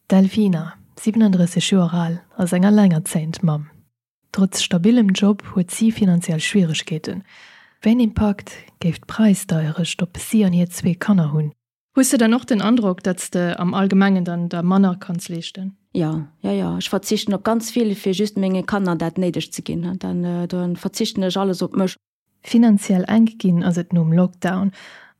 D'Delfina, 37 Joer al, ass eng allengerzéiend Mamm. Trotz stabilem Job huet si finanziell Schwieregkeeten. Wéi en Impakt géif d'Präisdeierecht op si an hir zwee Kanner hunn? Hues de dann och den Androck, datt s de am Allgemengen dann der manner kanns leeschten? Jo, jo, jo. Ech verzichten op ganz vill, fir just menge Kanner dat Néidegt ze ginn. Dann, dann verzichten ech alles op mech. Finanziell enk ginn ass et nom Lockdown,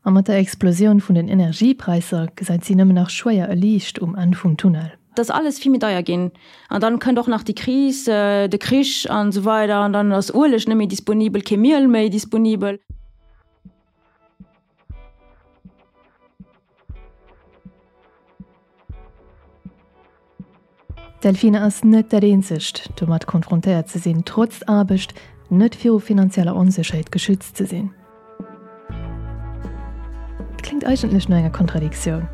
a mat der Explosioun vun den Energiepräisser gesäit si nëmmen nach schwéier e Liicht um Enn vum Tunnel. Et ass alles vill méi deier ginn an dann kënnt och nach déi Kris, de Krich an esou weider an dann ass Ueleg net méi disponibel, kee Miel méi disponibel. D'Delphine ass net dat eenzegt, domat konfrontéiert ze sinn, trotz Aarbecht net viru finanzieller Onsécherheet geschützt ze sinn. Et kléngt eigentlech no enger Kontradiktioun.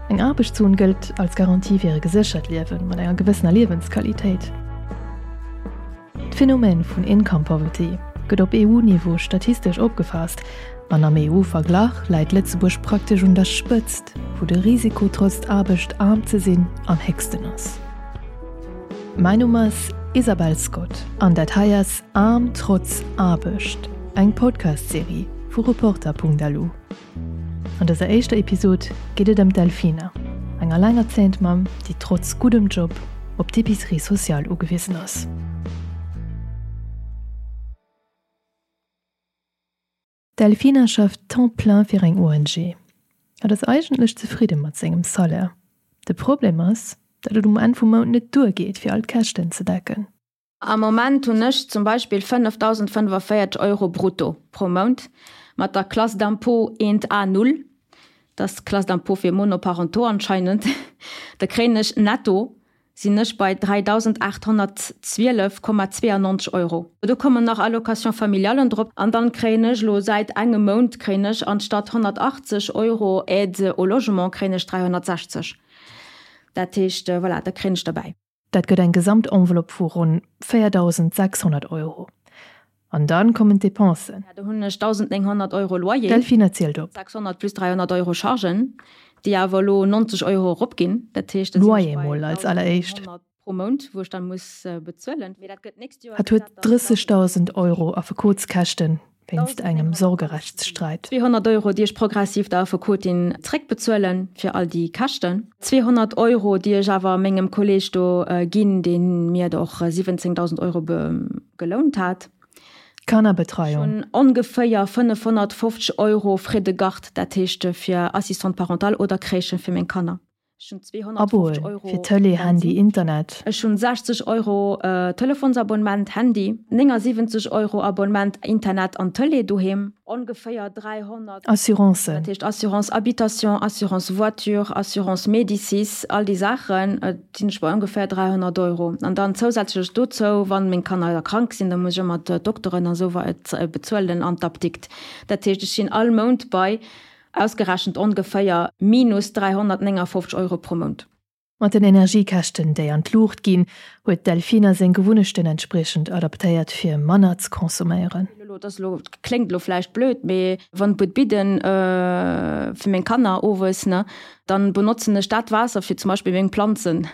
Eng Aarbechtszon gëllt als Garantie fir e geséchert Liewen mat enger gewëssener Liewensqualitéit. D'Phänomen vun Income Poverty gëtt op EU-Niveau statistesch opgefaasst an am EU-Verglach läit Lëtzebuerg praktesch un der Spëtzt, wou de Risiko trotz Aarbecht aarm ze sinn am héchsten ass. Mäin Numm ass Isabel Scott an dat hei ass Aarm trotz Aarbecht, eng Podcast-Serie vu Reporter.lu. An dëser éischter Episod geet et ëm d'Delfina, eng allengerzéiend Mamm, déi trotz guddem Job op d'Epicerie sociale ugewisen ass. D'Delfina schafft Temps plein fir eng ONG. Hatt ass eigentlech zefridde mat sengem Salaire. De Problem ass, datt et um Enn vum Mount net duergeet, fir all d'Käschten ze decken. Am Moment hunn ech zum Beispill 5.045 Euro brutto pro Mount mat der Classe d'impôt 1 A 0, dat ass d'Classe d'impôt fir Monoparentaux anscheinend, da kréien ech netto, sinn ech bei 3.812,92 Euro. Do kommen nach Allocations familialen drop an dann kréien ech elo säit engem Mount kréien ech anstatt 180 Euro Aide au logement kréien ech 360. Dat heescht, voilà, da kréien ech derbäi. Dat gëtt eng Gesamtenveloppe vu ronn 4.600 Euro. An dann kommen d'Depensen. Do hunn ech 1.900 Euro Loyer. D'Delphine zielt op. 600 plus 300 Euro Chargen, déi awer elo 90 Euro eropginn. Dat heescht, da sinn ech bei Loyer mol als alleréischt. 1.900 pro Mount, wou ech dann muss bezuelen. Mee dat gëtt d'nächst Joer. Hatt huet 30.000 Euro Affekotskäschten wéinst engem Sorgerechtssträit. 200 Euro, déi ech progressiv der Affekotin zréckbezuelen fir all déi Käschten. 200 Euro, déi ech awer mengem Kolleg do ginn, dee mir der och 17.000 Euro gelount hat. Kannerbetreiung. Ech hunn ongeféier 550 Euro Frais de garde, dat heescht fir Assistante parentale oder Crèche fir meng Kanner. Ech hunn 250 Euro fir Tëlee, Handy, Internet. Ech hunn 60 Euro Telefonsabonnement, Handy, 79 Euro Abonnement Internet an Tëlee doheem, ongeféier 300. Assurancen. Dat heescht Assurance Habitation, Assurance Voiture, Assurance Médicis, all déi Saachen, sinn ech bei ongeféier 300 Euro. An dann zousätzlech dozou, wann meng Kanner da krank sinn, da muss ech ëmmer d'Dokteren a sou bezuelen an d'Apdikt. Dat heescht, ech sinn all Mount bei Ausgerechent ongeféier minus 359 Euro pro Mount. Mat den Energiekäschten, déi an d'Luucht ginn, huet d'Delfina seng Gewunnechten entspriechend adaptéiert, fir manner ze consomméieren. Elo, dat ass elo, kléngt elo vläicht blöd, mee wann d'Buet bidden fir meng Kanner owes, ne, dann benotzen ech dat Waasser fir zum Beispill meng Planzen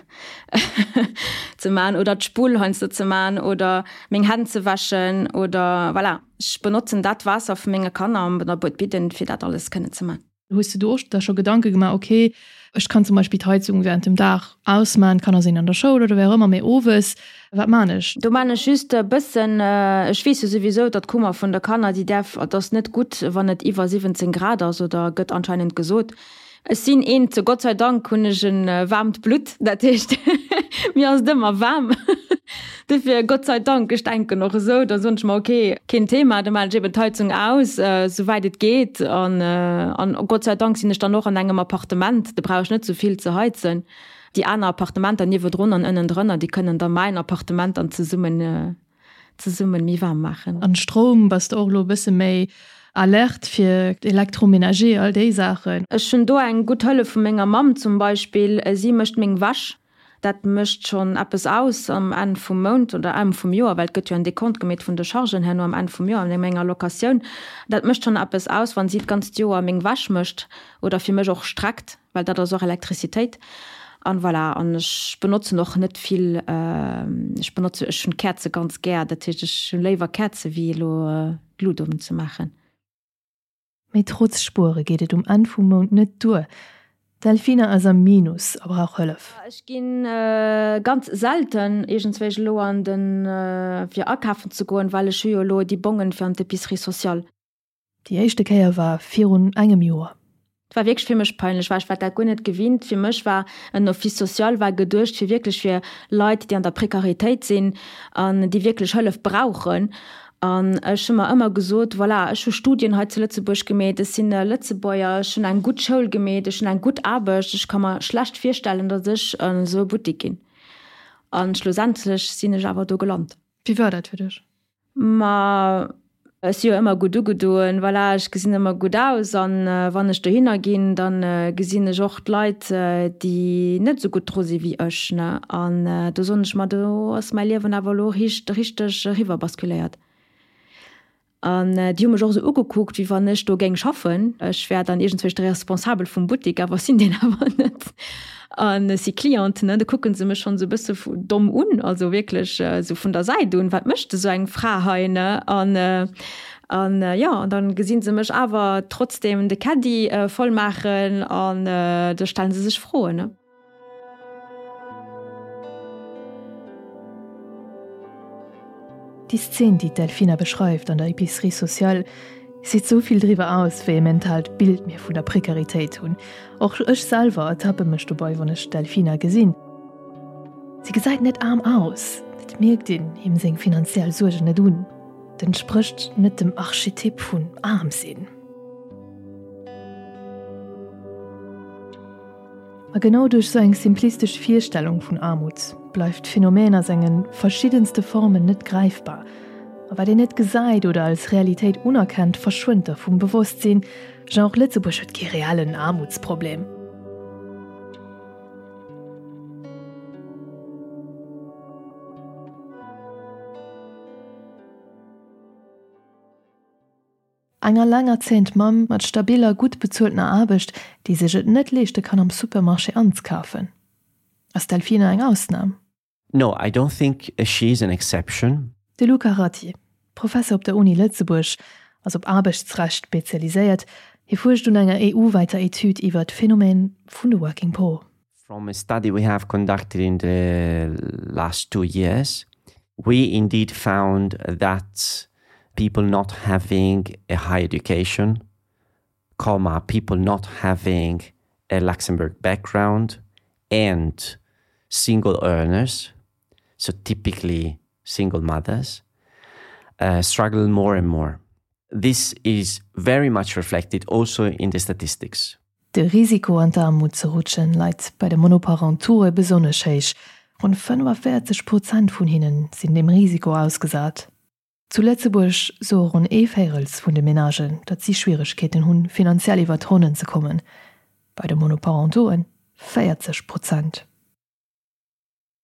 ze man oder d'Spull heiansdo ze man oder meng Hänn ze wäschen oder voilà. Ech benotzen dat Waasser vu menge Kanner an der Buet Bidden, fir dat alles kënnen ze man. Hues de do och der scho Gedanke gemaach, ok, ech kann zum Beispill d'Heizung während dem Dag ausman, d'Kanner sinn an der Schoul oder wéi och ëmmer, mee owes, wat man ech? Do man ech just e bëssen, ech weess jo souwisou, datt d'Kummer vun der Kanner, déi däerf, et ass net gutt, wann et iwwer 17 Grad ass, oder gëtt anscheinend gesot. Ech sinn eent, Gott sei Dank hunn ech e waarmt Blutt, dat heescht mir ass et ëmmer waarm. Dofir Gott sei Dank, ech denken och esou, da soen ech mer, ok, keen Thema, da maachen ech eben d'Heizung aus, souwäit et geet. An an Gott sei Dank sinn ech dann och an engem Appartement, do brauch ech net esou vill ze heizen. Déi aner Appartementer niewedrun an ënnendrënner, déi kënnen da mäin Appartement dann zesummen zesummen méi waarm maachen. An Stroum bass de och elo e bësse méi alerte fir Electroménager, all déi Saachen? Ech hunn do eng gutt Hëllef vu menger Mamm zum Beispill. Si mécht meng Wäsch. Dat mécht schonn eppes aus am Enn vum Mount oder Enn vum Joer, well et gëtt jo en Dekont gemeet vun de Chargen herno am Enn vum Joer an menger Locatioun. Dat mécht schonn eppes aus, wann si d'ganzt Joer meng Wäsch mécht oder fir mech och streckt. well dat ass och Elektrizitéit. An voilà, an ech benotzen och net vill, ech benotze, ech hunn Käerze ganz gär, dat heescht ech hunn léiwer Käerze wéi elo d'Lut unzemaachen. Mee trotz Spuere geet et um Enn vum Mount net duer. D'Delfina ass am Minus a brauch Hëllef. Ech gi ganz selten iergendswéi elo an den, fir akafen ze goen, well ech hu jo elo déi Bongen fir an d'Epicerie sociale. Déi éischte Kéier war virun engem Joer. Et war wierklech fir mech peinlech, well ech war dat guer net gewinnt. Fir mech war en Office social war geduecht fir wierklech fir Leit, déi an der Prekaritéit sinn an déi wierklech Hëllef brauchen. An ech hu mer ëmmer gesot, voilà, ech hu Studien hei zu Lëtzebuerg gemeet, ech sinn e Lëtzebuerger, ech hunn eng gutt Schoul gemeet, ech hunn eng gutt Aarbecht, ech ka mer schlecht virstellen, datt ech an esou e Buttek ginn. A schlussendlech sinn ech awer do gelant. Wéi war dat fir dech? Ma ech si jo ëmmer gutt ugedoen, voilà, ech gesinn ëmmer gutt aus an wann ech dohinner ginn, da gesinn ech och d'Leit, déi net esou gutt dru si wéi ech, ne. An do soen ech mer, do ass mäi Liewen awer elo richteg eriwwer basculéiert. An déi hu mech och esou ugekuckt, wéi wann ech do géing schaffen. Ech wär dann iergendzwousch de Responsabel vum Buttik, awer ech sinn deen awer net. An ech si Cliente, ne, da kucke se mech schonn esou e bësse domm un, also wierklech esou vun der Säit un, wat mécht esou eng Fra hei, ne? An, an jo, an da gesi se mech awer trotzdeem de Caddie voll maachen an da stelle se sech Froen, ne? Déi Szen, déi d'Delfina beschreift an der Épicerie sociale, seet sou vill driwwer aus, wéi e mentaalt Bild mir vun der Prekaritéit hunn. Och ech selwer ertappe mech dobei, wann ech d'Delfina gesinn. Si gesäit net aarm aus, et mierkt een him seng finanziell Suergen net un, et entsprécht net dem Archetyp vun aarm sinn. A genau duerch sou eng simplistesch Virstellung vun Aarmut bleift d'Phänomen a senge verschiddenste Formen net gräifbar. A wat een net gesäit oder als Realitéit unerkennt, verschwënnt da vum Bewosstsinn. Genre Lëtzebuerg huet kee reellen Aarmutsproblem. Eng allengerzéiend Mamm mat stabiller, gutt bezueltener Aarbecht, déi sech et net leeschte kann am Supermarché anzekafen. Ass d'Delfina eng Ausnam? No, I don't think she is an exception. De Luca Ratti, Professer op der Uni Lëtzebuerg, ass op Aarbechtsrecht spezialiséiert. Hie fuerscht un enger EU-wäiter Etüd iwwer d'Phänomen vun de Working Poor. From a study we have conducted in the last two years, we indeed found that people not having a high education, comma, people not having a Luxembourg background and single earners, so typically single mothers, uh, struggle more and more. This is very much reflected also in the statistics. De Risiko an d'Aarmut ze rutschen leit bei de Monoparentoure besonnesch héich, ronn 45 Prozent vun hinne sinn deem Risiko ausgesat. Zu Lëtzebuerg soe ronn ee Véirels vun de Menagen, datt si Schwieregkeeten hunn, finanziell iwwer d'Ronnen ze kommen, bei de Monoparentoe 40 Prozent.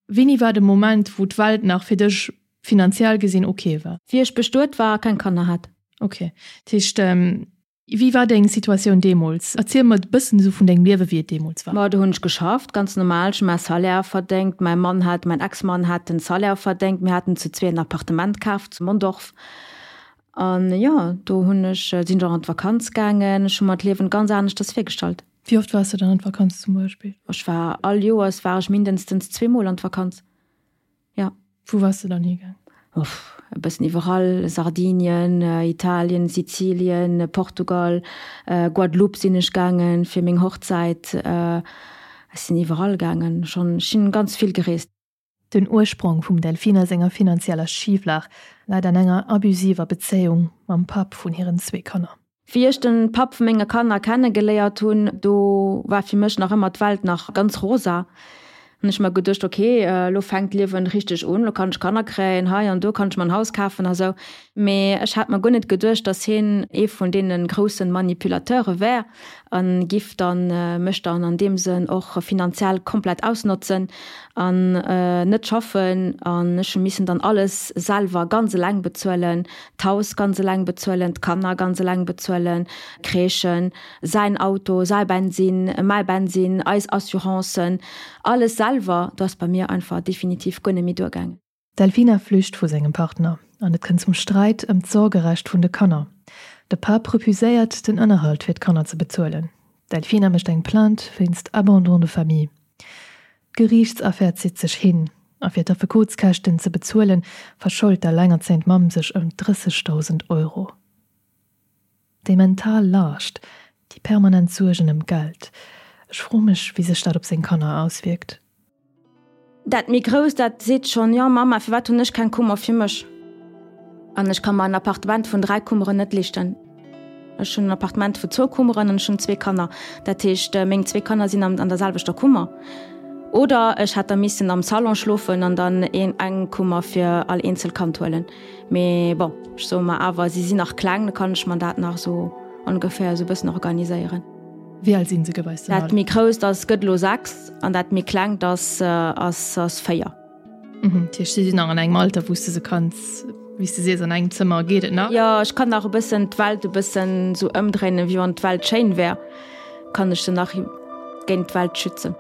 Wéini war de Moment, wou d'Welt nach fir dech finanziell gesinn ok war? Wéi ech bestuet war a keng Kanner hat. Ok, dat heescht, wéi war deng Situatioun deemools? Erziel mer e bëssen esou vun dengem Liewe wéi et deemools war. Ma do hunn ech geschafft, ganz normal, ech hu mäi Salaire verdéngt, mäi Mann hat, mäin Ex-Mann hat den Salaire verdéngt, mir haten zu zwee en Appartement kaaft zu Mondorf an jo, do hunn ech, sinn ech och an d'Vakanz gaangen, ech hu mer d'Liewen ganz aneschters virgestallt. Wéi oft waars de dann an d'Vakanz zum Beispill? Ech war all Joers war ech mindestens zweemol an d'Vakanz, jo. Wou waars de dann higaang? Uff, e bëssen iwwerall, Sardinien, Italien, Sizilien, Portugal, Guadeloupe sinn ech gaangen fir meng Hochzäit. Ech sinn iwwerall gaangen schonn, ech sinn ganz vill gereest. Den Ursprong vum Delfina senger finanzieller Schiflag läit an enger abusiver Bezéiung mam Papp vun hiren zwee Kanner. Wéi ech den Papp vu menge Kanner kenne geléiert hunn, do war fir mech nach ëmmer d'Welt nach ganz rosa. Hunn ech mer geduecht, ok, elo fänkt d'Liewen richteg un, elo kann ech Kanner kréien, hei an do kann ech mer en Haus kafen a sou. Mee ech hat mer guer net geduecht, dass hien ee vun deene grousse Manipulateure wär a giff dann mech dann an deem Sënn och finanziell komplett ausnotzen an net schaffen. An ech hu missen dann alles selwer ganz eleng bezuelen, d'Haus ganz eleng bezuelen, d'Kanner ganz eleng bezuelen, d'Crèchen, säin Auto, säi Bensinn, mäi Bensinn, eis Assurancen, alles selwer. Do ass bei mir einfach definitiv guer net méi duergaangen. D'Delfina flücht vu sengem Partner an et kënnt zum Sträit ëm d'Sorgerecht vun de Kanner. De Papp refuséiert, den Ënnerhalt fir d'Kanner ze bezuelen. D'Delfina mécht eng Plainte wéinst Abandon de famille. D'Geriichtsaffär zitt sech hin a fir d'Affekotskäschten ze bezuelen, verschold d'allengerzéiend Mamm sech ëm 30.000 Euro. Déi mental Laascht, déi permanent Suergen ëm d'Geld, ech froe mech, wéi sech dat op seng Kanner auswierkt. Dat méi Grousst, dat seet schonn, Jo Mamma, firwat hunn ech keng Kummer fir mech? An ech ka mer en Appartement vun 3 Kummeren net leeschten. Ech hunn en Appartement vu zwou Kummeren an ech hunn zwee Kanner. Dat heescht, meng zwee Kanner sinn an der selwechter Kummer. Oder ech hätt da missen am Salon schlofen an dann eng Kummer fir all eenzel Kand huelen. Mee bon, ech soe mer awer, si sinn nach kleng, da kann ech mer dat nach esou ongeféier esou e bëssen organiséieren. Wéi al sinn se geweis dann all? Dat méi grousst ass, gëtt elo 6 an dat méi klengt ass, ass, ass 4. Mhm, dat heescht, si sinn nach an engem Alter, wou s de se kanns, wéi s de sees, an engem Zëmmer geet et nach? Jo, ech kann nach e bëssen d'Welt e bëssen esou ëmdréinen, wéi wann d'Welt schéin wär, kann ech se nach géint d'Welt schützen.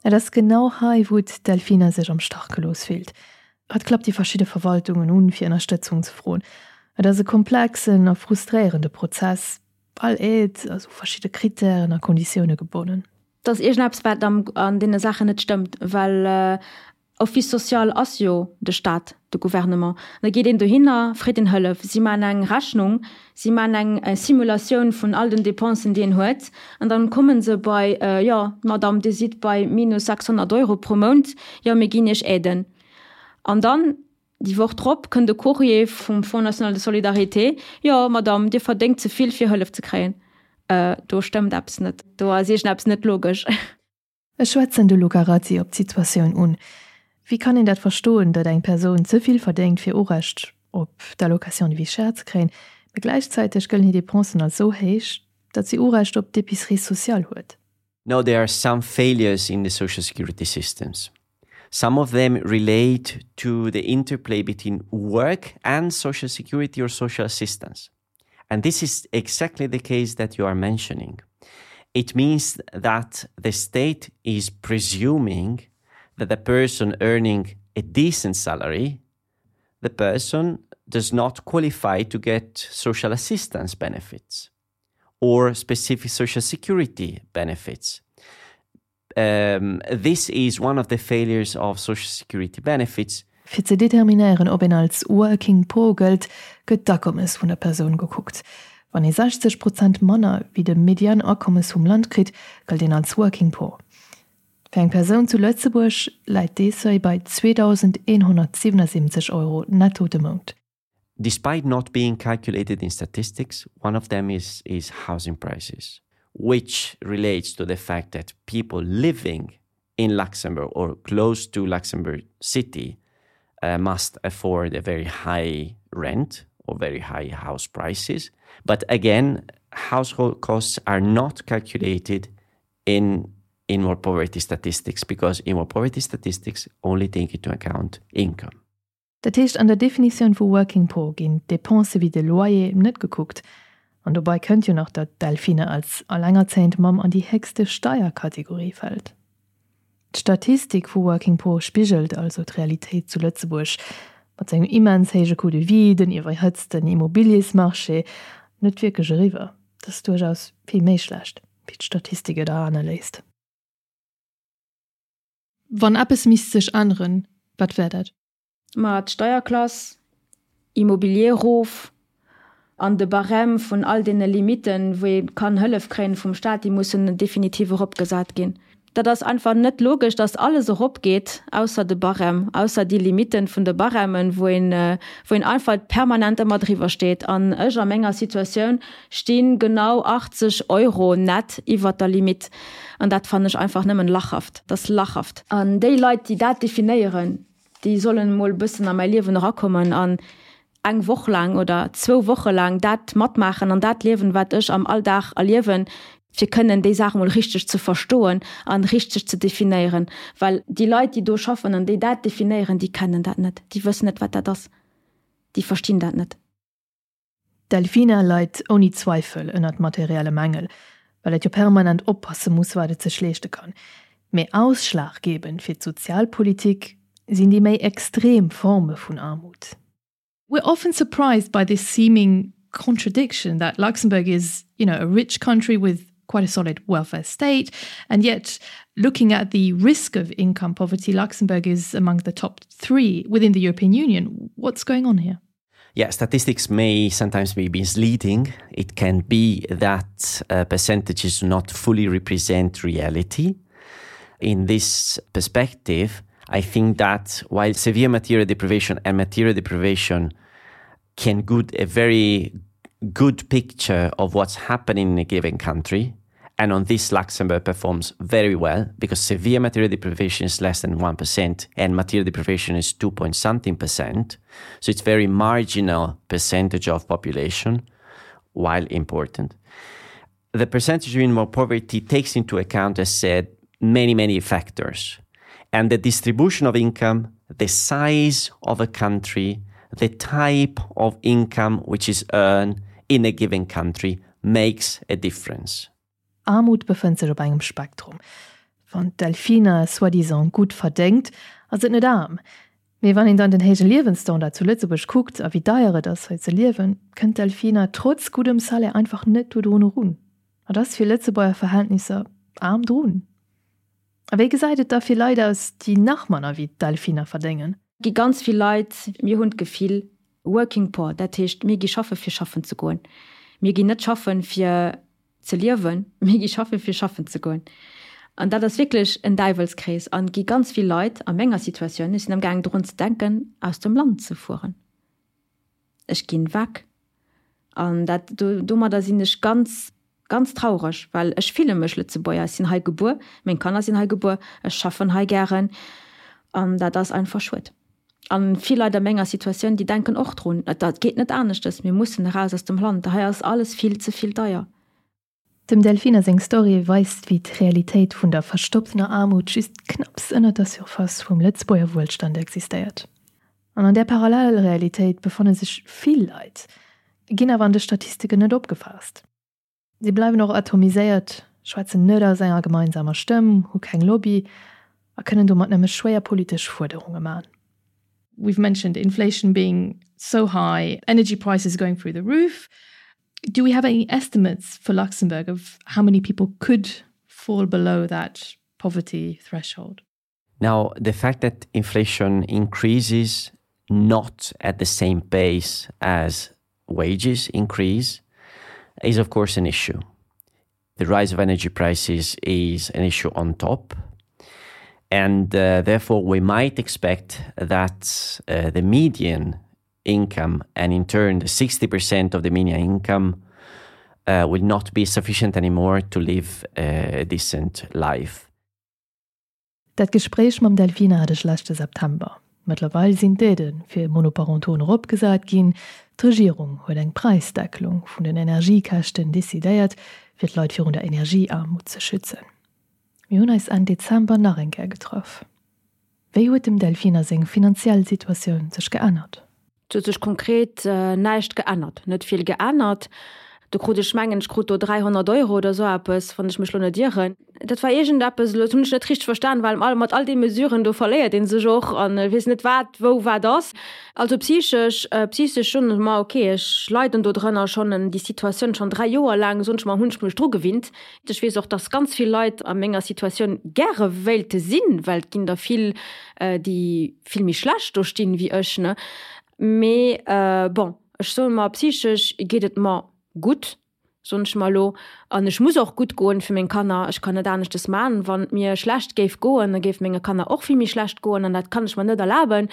Et ass genau hei, wou d'Delfina sech am Stach gelooss fillt. Hatt klappt déi verschidde Verwaltungen un, fir Ënnerstëtzung ze froen. Et ass e komplexen a frustréierende Prozess. All Aide ass u verschidde Krittären a Konditioune gebonnen. Et ass iergendeppes, wat an deene Saachen net stëmmt, well Office social ass jo de Staat, de Gouvernement. Da geet een dohinner, freet een Hëllef. Si maachen eng Rechnung, si maachen eng Simulatioun vun all den Dépensen, déi een huet, an dann komme se bei, jo, Madame, Dir sidd bei minus 600 Euro pro Mount, jo, mir ginn Iech Aiden. An dann déi Woch drop kënnt e Courrier vum Fonds national de solidarité, jo, Madame, Dir verdéngt ze vill, fir Hëllef ze kréien. Do stëmmt eppes net, do ass iergendeppes net logesch. Ech schwätzen de Luca Razzi op d'Situatioun un. Wéi kann een dat verstoen, datt eng Persoun ze vill verdéngt fir Urecht op d'Allocation de vie chère ze kréien, mee gläichzäiteg gëllen hir Dépensen als sou héich, datt si Urecht op d'Épicerie sociale huet? No, there are some failures in the social security systems. Some of them relate to the interplay between work and social security or social assistance. And this is exactly the case that you are mentioning. It means that the state is presuming that the person earning a decent salary, the person does not qualify to get social assistance benefits or specific social security benefits. Um, this is one of the failures of social security benefits. Fir ze determinéieren, ob een als Working Poor gëllt, gëtt d'Akommes vun der Persoun gekuckt. Wann ee 60 Prozent manner wéi de Median-Akommes vum Land kritt, gëllt een als Working Poor. Fir eng Persoun zu Lëtzebuerg läit dee Seuil bei 2.177 Euro netto de Mount. Despite not being calculated in statistics, one of them is, is housing prices, which relates to the fact that people living in Luxembourg or close to Luxembourg City uh, must afford a very high rent or very high house prices. But again, household costs are not calculated in in more poverty statistics because in more poverty statistics only take into account income. Dat heescht, an der Definitioun vu Working Poor ginn d'Depensë wéi de Loyer net gekuckt. An dobei kënnt jo nach, datt d'Delphine als allengerzéiend Mamm an déi héchste Steierkategorie fält. D'Statistik vu Working Poor spigelt also d'Realitéit zu Lëtzebuerg, mat sengem immens héije Coût de vie, den iwwerhëtzten Immobiliesmarché, net wierklech eriwwer. Dat ass duerchaus vill méi schlecht, wéi d'Statistik et erane léisst. Wann eppes misst sech änneren, wat wär dat? Ma d'Steierklass, Immobilier erof an de Barème vun all deene Limitten, wou ee kann Hëllef kréien vum Staat, déi mussen definitiv eropgesat ginn. Dat ass einfach net logesch, dass alles eropgeet, ausser de Barème, ausser déi Limitten vun de Barèmen, wou een, wou een einfach permanent ëmmer driwwer steet. An ech a menger Situatioun sti genau 80 Euro net iwwert der Limite. An dat fannen ech einfach nëmmen lachhaft. Dat ass lachhaft. An déi Leit, déi dat definéieren, déi sollen emol e bëssen a mäi Liewen erakommen an eng Woch laang oder zwou Woche laang dat matmaachen an dat liewen, wat ech am Alldag erliewen, fir kënnen déi Saach emol richteg ze verstoen an richteg ze definéieren. Well déi Leit, déi do schaffen an déi dat definéieren, déi kennen dat net, déi wëssen net, wat dat ass, déi verstinn dat net. D'Delfina leit ouni Zweifel ënnert materielle Mängel, well et jo permanent oppasse muss, wat et sech leeschte kann. Mee ausschlaggebend fir d'Sozialpolitik sinn déi méi extrem Forme vun Aarmut. We're often surprised by this seeming contradiction that Luxembourg is, you know, a rich country with quite a solid welfare state and yet looking at the risk of income poverty Luxembourg is among the top 3 within the European Union what's going on here Yeah, statistics may sometimes be misleading. It can be that uh, percentages do not fully represent reality. In this perspective, I think that while severe material deprivation and material deprivation can good a very good picture of what's happening in a given country, and on this Luxembourg performs very well because severe material deprivation is less than 1% and material deprivation is 2 point something percent. So it's very marginal percentage of population while important. The percentage of more poverty takes into account, as said, many, many factors. And the distribution of income, the size of a country, the type of income which is earned in a given country makes a difference. Aarmut befënnt sech op engem Spektrum. Wann d'Delfina soi-disant gutt verdéngt, ass et net aarm. Mee wann een dann den héije Liewensstandard zu Lëtzebuerg kuckt a wéi deier et ass hei ze liewen, kënnt d'Delfina trotz guddem Salaire einfach net dodrun erun. Et ass fir Lëtzebuerger Verhältnisser aarm drun. A wéi gesäit et da fir Leit aus, déi nach manner wéi d'Delfina verdéngen? Gi ganz vill Leit, mir hunn d'Gefill, working poor, dat heescht mir gi schaffe fir schaffen ze goen. Mir ginn net schaffen fir ze liewen, mir gi schaffen fir schaffen ze goen. An dat ass wierklech en Däiwelskrees an et gi ganz vill Leit a menger Situatioun, ech sinn amgaangen drun ze denken aus dem Land ze fueren. Ech ginn weg. An dat, domadder sinn ech ganz, ganz traureg, well ech fille mech Lëtzebuerger. Ech sinn hei gebuer, meng Kanner sinn hei gebuer, ech schaffen hei gären an dat ass einfach schued. An vill Leit a menger Situatioun, déi denken och drun, et geet net aneschtes, mir mussen eraus aus dem Land, hei ass alles vill ze vill deier. Dem Delfina seng Story weist, wéi d'Realitéit vun der verstopptener Aarmut just knapps ënnert der Surface vum Lëtzebuerger Wuelstand existéiert. An an där Parallelrealitéit befanne sech vill Leit, ginn awer an de Statistiken net opgefaasst. Si bleiwen och atomiséiert, schwätzen net aus enger gemeinsamer Stëmm, hu keng Lobby a kënnen domat nëmme schwéier politesch Fuerderunge man. We've mentioned inflation being so high, energy prices going through the roof. Do we have any estimates for Luxembourg of how many people could fall below that poverty threshold? Now, the fact that inflation increases not at the same pace as wages increase is of course an issue. The rise of energy prices is an issue on top. And uh, therefore, we might expect that uh, the median income and in turn the 60% of the median income uh, will not be sufficient anymore to live a decent life. Dat Gespréich mam Delfina hat ech leschte September. Mëttlerweil sinn d'Aidë fir Monoparentoen eropgesat ginn, d'Regierung huet eng Präisdeckelung vun den Energiekäschten decidéiert, fir d'Leit virun der Energieaarmut ze schützen. Mir hunn eis Enn Dezember nach eng Kéier getraff. Wéi huet dem Delfina seng finanziell Situatioun sech geännert? Et huet sech konkret näischt geännert, net vill geännert. Do krut ech, mengen ech krut do 300 Euro oder esou eppes, wann ech mech elo net ieren. Dat war iergendeppes, elo hunn ech net richteg verstan, well mat all de Mesuren do verléiert ee sech och an weess net wat wou wat ass. Also psychesch, psychesch soen ech mer, ok, ech leiden do drënner schonn, déi Situatioun schonn 3 Joer laang, soen ech mer, hunn ech mech dru gewinnt. Ech weess och, dass ganz vill Leit a menger Situatioun gäre wéilte sinn, well et ginn der vill, déi vill méi schlecht do stinn wéi ech, ne. Mee bon, ech soe mer, psychesch geet et mer gutt. Soen ech mer elo. An ech muss och gutt goen fir meng Kanner. Ech kann net aneschtes man. Wann et mir schlecht géif goen, da géif menge Kanner och vill méi schlecht goen an dat kann ech mer net erlaben.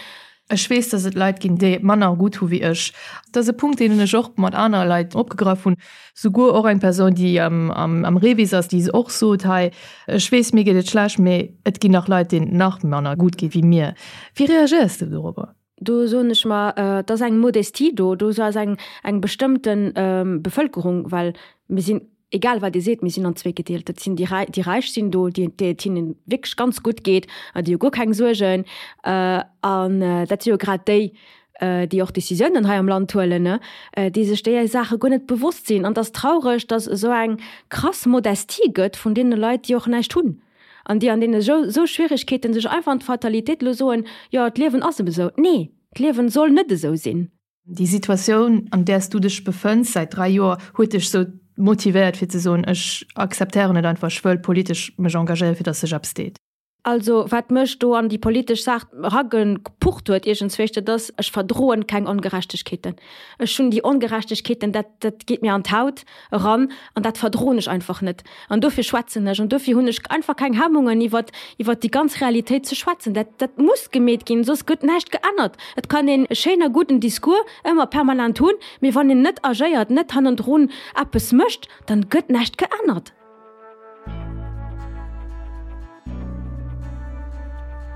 Ech weess, dass et Leit ginn, déi et manner gutt hu wéi ech. Dat ass e Punkt, deen ech och mat anere Leit opgegraff hunn. Souguer och eng Persoun, déi am Revis ass, déi och sot, hei, ech weess, mir geet et schlecht, mee et ginn nach Leit, deenen et nach manner gutt geet wéi mir. Wéi reagéiers de dorobber? Do soen ech mer, et ass eng Modestie do, do ass eng eng bestëmmte Bevëlkerung, well mir sinn, egal wat ee seet, mir sinn an zweek gedeelt. Dat sinn déi Räi, déi Räich sinn do, déi déi et hinnen wierklech ganz gutt geet an déi hu guer keng Suergen. An dat si jo grad déi, déi och Decisiounen hei am Land huelen, ne, déi sech déi Saache guer net bewosst sinn. An et ass traureg, datt esou eng krass Modestie gëtt vun deene Leit, déi och näischt hunn. An déi an deene esou Schwierigkeeten sech einfach an d'Fatalitéit elo soen, jo, d'Liewen ass eben esou. Nee, d'Liewen soll net esou sinn. Déi Situatioun, an där s du dech befënns säit 3 Joer, huet dech esou motivéiert fir ze soen, ech akzeptéieren et einfach, ech wëll politesch mech engagéieren, fir datt sech eppes deet? Also wat mech do an déi politesch Saach eragepucht huet iergendzwéich, dat ass, ech verdroen keng Ongerechtegkeeten. Ech hunn déi Ongerechtegkeeten, dat, dat geet mir an d'Haut eran an dat verdroen ech einfach net. An dofir schwätzen ech an dofir hunn ech einfach keng Hemmungen iwwert, iwwert déi ganz Realitéit ze schwätzen. Dat, dat muss gemeet ginn, soss gëtt näischt geännert. Et kann een e schéin a gudden Discours ëmmer permanent hunn, mee wann een net agéiert, net hannendrun eppes mécht, dann gëtt näischt geännert.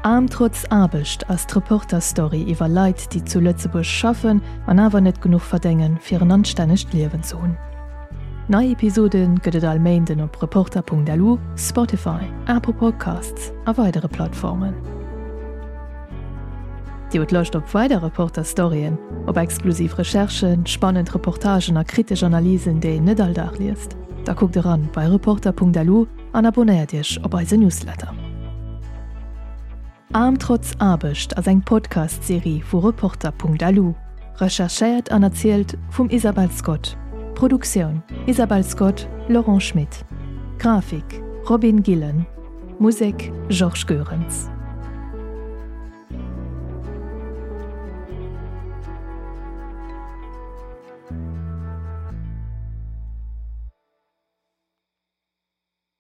Aarm trotz Aarbecht ass d'Reporter-Story iwwer Leit, déi zu Lëtzebuerg schaffen an awer net genuch verdéngen, fir en anstännegt Liewen ze hunn. Nei Episode gëtt et all Méinden op Reporter.lu, Spotify, Apple Podcasts a weidere Plattformen. Dir hutt Loscht op weider Reporter-Storyen, op exklusiv Recherchen, spannend Reportagen a kritesch Analysen, déi een net all Dag liest? Da kuckt eran bei Reporter.lu an abonnéiert Iech op eise Newsletter. Aarm trotz Aarbecht ass eng Podcast-Serie vu Reporter.lu, recherchéiert an erzielt vum Isabel Scott. Produktioun, Isabel Scott, Laurent Schmit. Grafik, Robin Gillen. Musek, Georges Goerens.